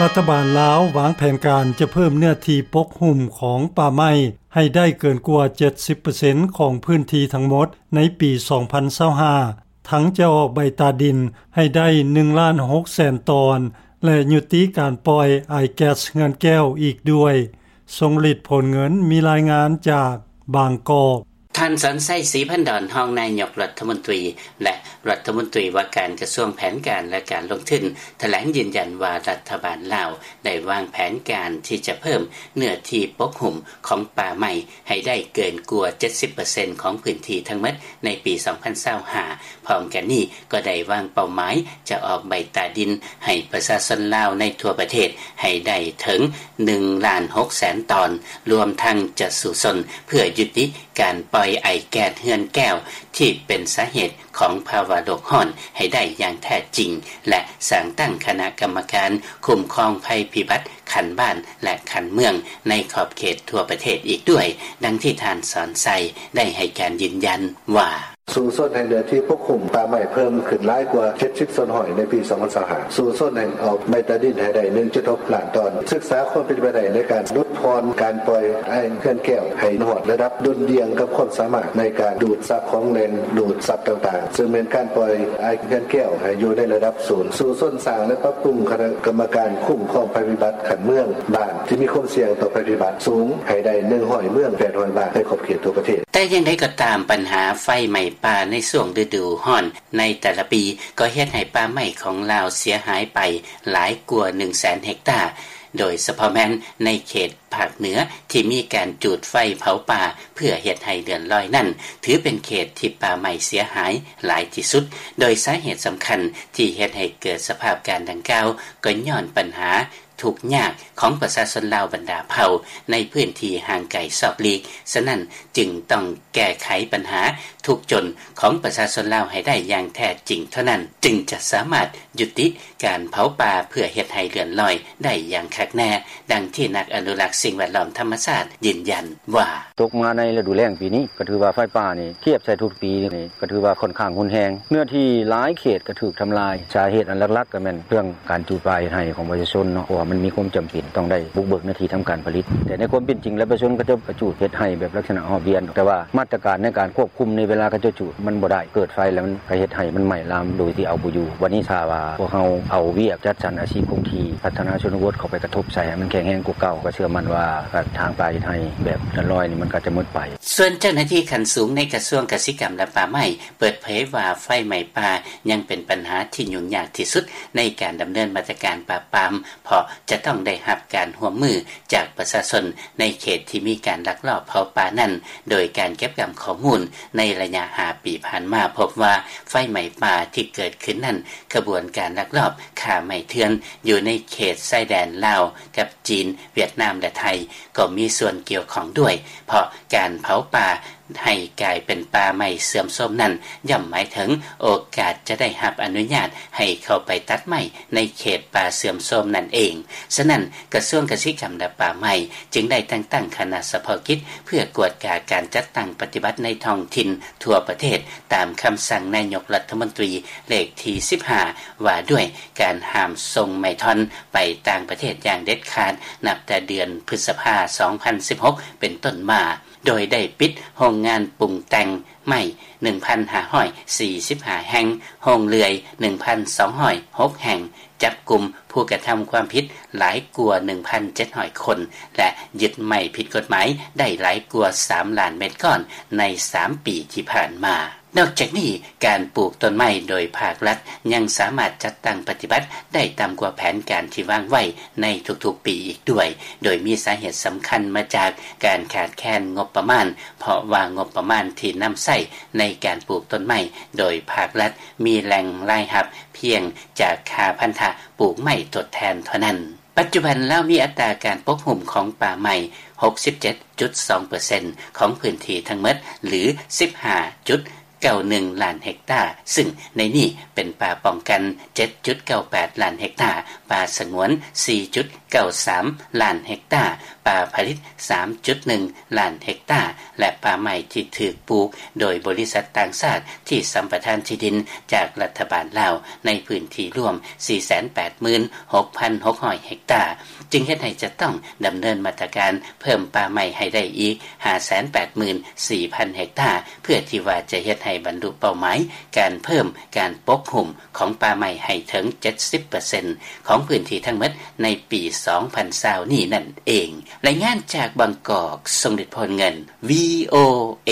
ລັດຖະບານລາວວາງແຜນການຈະເພີ່ມເນື້ອທີ່ປົກຫຸ້ມຂອງປ່າໄມ້ໃຫ້ໄດ້ເກີນກວ່າ ເຈັດສິບເປີເຊັນ ຂອງພື້ນທີ່ທັງໝົດໃນປີ ສອງພັນຊາວຫ້າ ທັງຈະອອກໃບຕາດິນໃຫ້ໄດ້ ໜຶ່ງລ້ານຫົກແສນຕອນ ແລະ ຍຸຕິການປ່ອຍອາຍແກັສເຮືອນແກ້ວອີກດ້ວຍ. ຊົງລິດ ໂພນເງິນ ມີລາຍງານຈາກບາງກອກ. ທ່ານ ສອນໄຊ ສີພັນດອນ ຮອງນາຍົກລັດຖະມົນຕີ ແລະ ລັດຖະມົນຕີວ່າການກະຊວງແຜນການ ແລະ ການລົງທຶນ ຖະແຫຼງຢືນຢັນວ່າ ລັດຖະບານລາວໄດ້ວາງແຜນການທີ່ຈະເພີ່ມເນື້ອທີ່ປົກຫຸ້ມຂອງປ່າໄມ້ໃຫ້ໄດ້ເກີນກວ່າ ເຈັດສິບເປີເຊັນ ຂອງພື້ນທີ່ທັງໝົດໃນປີ ສອງພັນຊາວຫ້າ. ພ້ອມກັນນີ້ກໍໄດ້ວາງເປົ້າໝາຍຈະອອກໃບຕາດິນໃຫ້ປະຊາຊົນລາວໃນທົ່ວປະເທດໃຫ້ໄດ້ເຖິງ ໜຶ່ງລ້ານຫົກແສນຕອນ, ລວມທັງຈະສູ້ຊົນເພື່ອຍຸຕິການປ່ອຍໄອແກັສເຮືອນແກ້ວທີ່ເປັນສາເຫດຂອງພາວະໂລກຮ້ອນໃຫ້ໄດ້ຢ່າງແທ້ຈິງ ແລະ ສ້າງຕັ້ງຄະນະກຳມະການຄຸ້ມຄອງໄພພິບັດຂັ້ນບ້ານ ແລະ ຂັ້ນເມືອງໃນຂອບເຂດທົ່ວປະເທດອີກດ້ວຍ, ດັ່ງທີ່ທ່ານ ສອນໄຊ ໄດ້ໃຫ້ການຢືນຢັນວ່າ ສູ້ຊົນໃຫ້ເນື້ອທີ່ປົກຫຸ້ມປ່າໄມ້ເພີ່ມຂຶ້ນຫຼາຍກວ່າ ເຈັດສິບສ່ວນຮ້ອຍ ໃນປີ ສອງພັນຊາວຫ້າ, ສູ້ຊົນໃຫ້ອອກໃບຕາດິນໃຫ້ໄດ້ ໜຶ່ງຈຸດຫົກລ້ານຕອນ, ສຶກສາຄວາມເປັນໄປໄດ້ໃນການຫຼຸດຜ່ອນການປ່ອຍໄອແກັສເຮືອນແກ້ວໃຫ້ຮອດລະດັບດຸ່ນດ່ຽງກັບຄວາມສາມາດໃນການດູດຊັບຂອງແຫຼ່ງດູດຊັບຕ່າງໆ, ເຊິ່ງແມ່ນການປ່ອຍໄອແກັສເຮືອນແກ້ວໃຫ້ຢູ່ໃນລະດັບສູນ, ສູ້ຊົນສ້າງ ແລະ ປັບປຸງຄະນະກຳມະການຄຸ້ມຄອງໄພພິບັດຂັ້ນເມືອງ, ບ້ານທີ່ມີຄວາມສ່ຽງຕໍ່ໄພພິບັດສູງໃຫ້ໄດ້ ໜຶ່ງຮ້ອຍເມືອງ ແປດຮ້ອຍບ້ານ ໃນຂອບເຂດທົ່ວປະເທດ. ແຕ່ຢ່າງໃດກໍຕາມ, ບັນຫາໄຟໄໝ້ປ່າໃນຊ່ວງລະດູຮ້ອນໃນແຕ່ລະປີ ກໍເຮັດໃຫ້ປ່າໄມ້ຂອງລາວເສຍຫາຍໄປຫຼາຍກວ່າ ໜຶ່ງແສນເຮັກຕາ, ໂດຍສະເພາະແມ່ນໃນເຂດພາກເໜືອທີ່ມີການຈູດໄຟເຜົາປ່າເພື່ອເຮັດໃຫ້ເລື່ອນລອຍນັ້ນ ຖືເປັນເຂດທີ່ປ່າໄມ້ເສຍຫາຍຫຼາຍທີ່ສຸດ, ໂດຍສາເຫດສຳຄັນທີ່ເຮັດໃຫ້ເກີດສະພາບການດັ່ງກ່າວ ກໍຍ້ອນບັນຫາ ທຸກຍາກຂອງປະຊາຊົນລາວບັນດາເຜົ່າໃນພື້ນທີ່ຫ່າງໄກຊອກຫຼີກ, ສະນັ້ນຈຶ່ງຕ້ອງແກ້ໄຂບັນຫາທຸກຈົນຂອງປະຊາຊົນລາວໃຫ້ໄດ້ຢ່າງແທ້ຈິງເທົ່ານັ້ນ, ຈຶ່ງຈະສາມາດຍຸຕິການເຜົາປ່າເພື່ອເຮັດໃຫ້ເລື່ອນລອຍໄດ້ຢ່າງຄັກແນ່, ດັ່ງທີ່ນັກອະນຸລັກສິ່ງແວດລ້ອມທຳມະຊາດຢືນຢັນວ່າ. ຕົກມາໃນລະດູແລ້ງປີນີ້ ກໍຖືວ່າໄຟປ່ານີ້ ທຽບໃສ່ທຸກປີນີ້ ກໍຖືວ່າຂ້ອນຂ້າງຮຸນແຮງ, ເນື້ອທີ່ຫຼາຍເຂດກໍຖືກທຳລາຍ. ສາເຫດອັນຫຼັກໆກໍແມ່ນເລື່ອງການຈູດປ່າເຮັດໄຮ່ຂອງປະຊາຊົນເນາະ, ເພາະວ່າມັນມີຄວາມຈຳເປັນຕ້ອງໄດ້ບຸກເບີກເນື້ອທີ່ທຳການຜະລິດ. ແຕ່ໃນຄວາມເປັນຈິງແລ້ວ ປະຊາຊົນເຂົາເຈົ້າກໍຈູດເຮັດໄຮ່ແບບລັກສະນະຮອບວຽນ, ແຕ່ວ່າມາດຕະການໃນການຄວບຄຸມໃນເວລາເຂົາເຈົ້າຈູດມັນບໍ່ໄດ້, ເກີດໄຟແລ້ວມັນກໍເຮັດໃຫ້ມັນໄໝ້ລາມໂດຍທີ່ເອົາບໍ່ຢູ່. ບັດນີ້ຖ້າວ່າພວກເຮົາເອົາວຽກຈັດສັນອາຊີບຄົງທີ່ ພັດທະນາຊົນນະບົດເຂົ້າໄປກະທົບໃສ່ໃຫ້ມັນແຂງແຮງກວ່າເກົ່າ, ກໍເຊື່ອໝັ້ນວ່າ ກະທາງປ່າເຮັດໄຮ່ແບບເຮືອນລອຍນີ້ ມັນກໍຈະໝົດໄປ. ສ່ວນເຈົ້າໜ້າທີ່ຂັ້ນສູງໃນກະຊວງກະສິກຳ ແລະ ປ່າໄມ້ ເປີດເຜີຍວ່າ ໄຟໄໝ້ປ່າຍັງເປັນບັນຫາທີ່ຫຍຸ້ງຍາກທີ່ສຸດໃນການດຳເນີນມາດຕະການປາບປາມ, ເພາະຈະຕ້ອງໄດ້ຮັບການຮ່ວມມືຈາກປະຊາຊົນໃນເຂດທີ່ມີການລັກລອບເຜົາປ່ານັ້ນ, ໂດຍການເກັບກຳຂໍ້ມູນໃນໄລຍະຫ້າປີຜ່ານມາ ພົບວ່າໄຟໄໝ້ປ່າທີ່ເກີດຂຶ້ນນັ້ນ ຂະບວນການລັກລອບຄ້າໄມ້ເຖື່ອນຢູ່ໃນເຂດຊາຍແດນລາວກັບຈີນ, ຫວຽດນາມ ແລະ ໄທ ກໍມີສ່ວນກ່ຽວຂ້ອງດ້ວຍ, ເພາະການເຜົາປ່າ ໃຫ້ກາຍເປັນປ່າໄມ້ເສື່ອມໂຊມນັ້ນ ຍ່ອມໝາຍເຖິງໂອກາດຈະໄດ້ຮັບອະນຸຍາດໃຫ້ເຂົ້າໄປຕັດໄມ້ໃນເຂດປ່າເສື່ອມໂຊມນັ້ນເອງ. ສະນັ້ນ, ກະຊວງກະສິກຳ ແລະ ປ່າໄມ້ ຈຶ່ງໄດ້ແຕ່ງຕັ້ງຄະນະສະເພາະກິດ ເພື່ອກວດກາການຈັດຕັ້ງປະຕິບັດໃນທ້ອງຖິ່ນທົ່ວປະເທດ ຕາມຄຳສັ່ງນາຍົກລັດຖະມົນຕີເລກທີສິບຫ້າ ວ່າດ້ວຍການຫ້າມສົ່ງໄມ້ທ່ອນໄປຕ່າງປະເທດຢ່າງເດັດຂາດ ນັບແຕ່ເດືອນພຶດສະພາ ສອງພັນສິບຫົກ ເປັນຕົ້ນມາ. ໂດຍໄດ້ປິດໂຮງງານປຸງແຕ່ງໄມ້ ໜຶ່ງພັນຫ້າຮ້ອຍສີ່ສິບຫ້າ ແຫ່ງ, ໂຮງເລື່ອຍ ໜຶ່ງພັນສອງຮ້ອຍຫົກ ແຫ່ງ, ຈັບກຸມຜູ້ກະທຳຄວາມຜິດຫຼາຍກວ່າ ໜຶ່ງພັນເຈັດຮ້ອຍຄົນ ແລະ ຍຶດໄມ້ຜິດກົດໝາຍໄດ້ຫຼາຍກວ່າ ສາມລ້ານເມັດກ້ອນໃນສາມປີທີ່ຜ່ານມາ. ນອກຈາກນີ້, ການປູກຕົ້ນໄມ້ໂດຍພາກລັດຍັງສາມາດຈັດຕັ້ງປະຕິບັດໄດ້ຕ່ຳກວ່າແຜນການທີ່ວາງໄວ້ໃນທຸກໆປີອີກດ້ວຍ, ໂດຍມີສາເຫດສຳຄັນມາຈາກການຂາດແຄນງົບປະມານ, ເພາະວ່າງົບປະມານທີ່ນຳໃຊ້ໃນການປູກຕົ້ນໄມ້ໂດຍພາກລັດມີແຫຼ່ງລາຍຮັບພຽງຈາກຄ່າພັນທະປູກໄມ້ທົດແທນເທົ່ານັ້ນ. ປັດຈຸບັນລາວມີອັດຕາການປົກຫຸ້ມຂອງປ່າໄມ້ ຫົກສິບເຈັດຈຸດສອງເປີເຊັນ ຂອງພື້ນທີ່ທັງໝົດ ຫຼື ສິບຫ້າຈຸດເກົ້າໜຶ່ງລ້ານເຮັກຕາ, ຊຶ່ງໃນນີ້ເປັນປ່າປ້ອງກັນ ເຈັດຈຸດເກົ້າແປດລ້ານເຮັກຕາ, ປ່າສະຫງວນ ສີ່ຈຸດເກົ້າສາມລ້ານເຮັກຕາ, ປ່າຜະລິດ ສາມຈຸດໜຶ່ງລ້ານເຮັກຕາ ແລະ ປ່າໄມ້ທີ່ຖືກປູກໂດຍບໍລິສັດຕ່າງຊາດທີ່ສຳປະທານທີ່ດິນຈາກລັດຖະບານລາວ ໃນພື້ນທີ່ລວມ ສີ່ແສນແປດໝື່ນຫົກພັນຫົກຮ້ອຍເຮັກຕາ ຈຶ່ງເຮັດໃຫ້ຈະຕ້ອງດຳເນີນມາດຕະການເພີ່ມປ່າໄມ້ໃຫ້ໄດ້ອີກ ຫ້າແສນແປດໝື່ນສີ່ພັນເຮັກຕາ ເພື່ອທີ່ວ່າຈະເຮັດໃຫ້ບັນລຸເປົ້າໝາຍການເພີ່ມການປົກຫຸ້ມ ຂອງປ່າໄມ້ໃຫ້ເຖິງ ເຈັດສິບເປີເຊັນ ຂອງພື້ນທີ່ທັງໝົດໃນປີ ສອງພັນຊາວ ນີ້ນັ້ນເອງ. ລາຍງານຈາກບາງກອກ ຊົງລິດ ໂພນເງິນ ວີໂອເອ.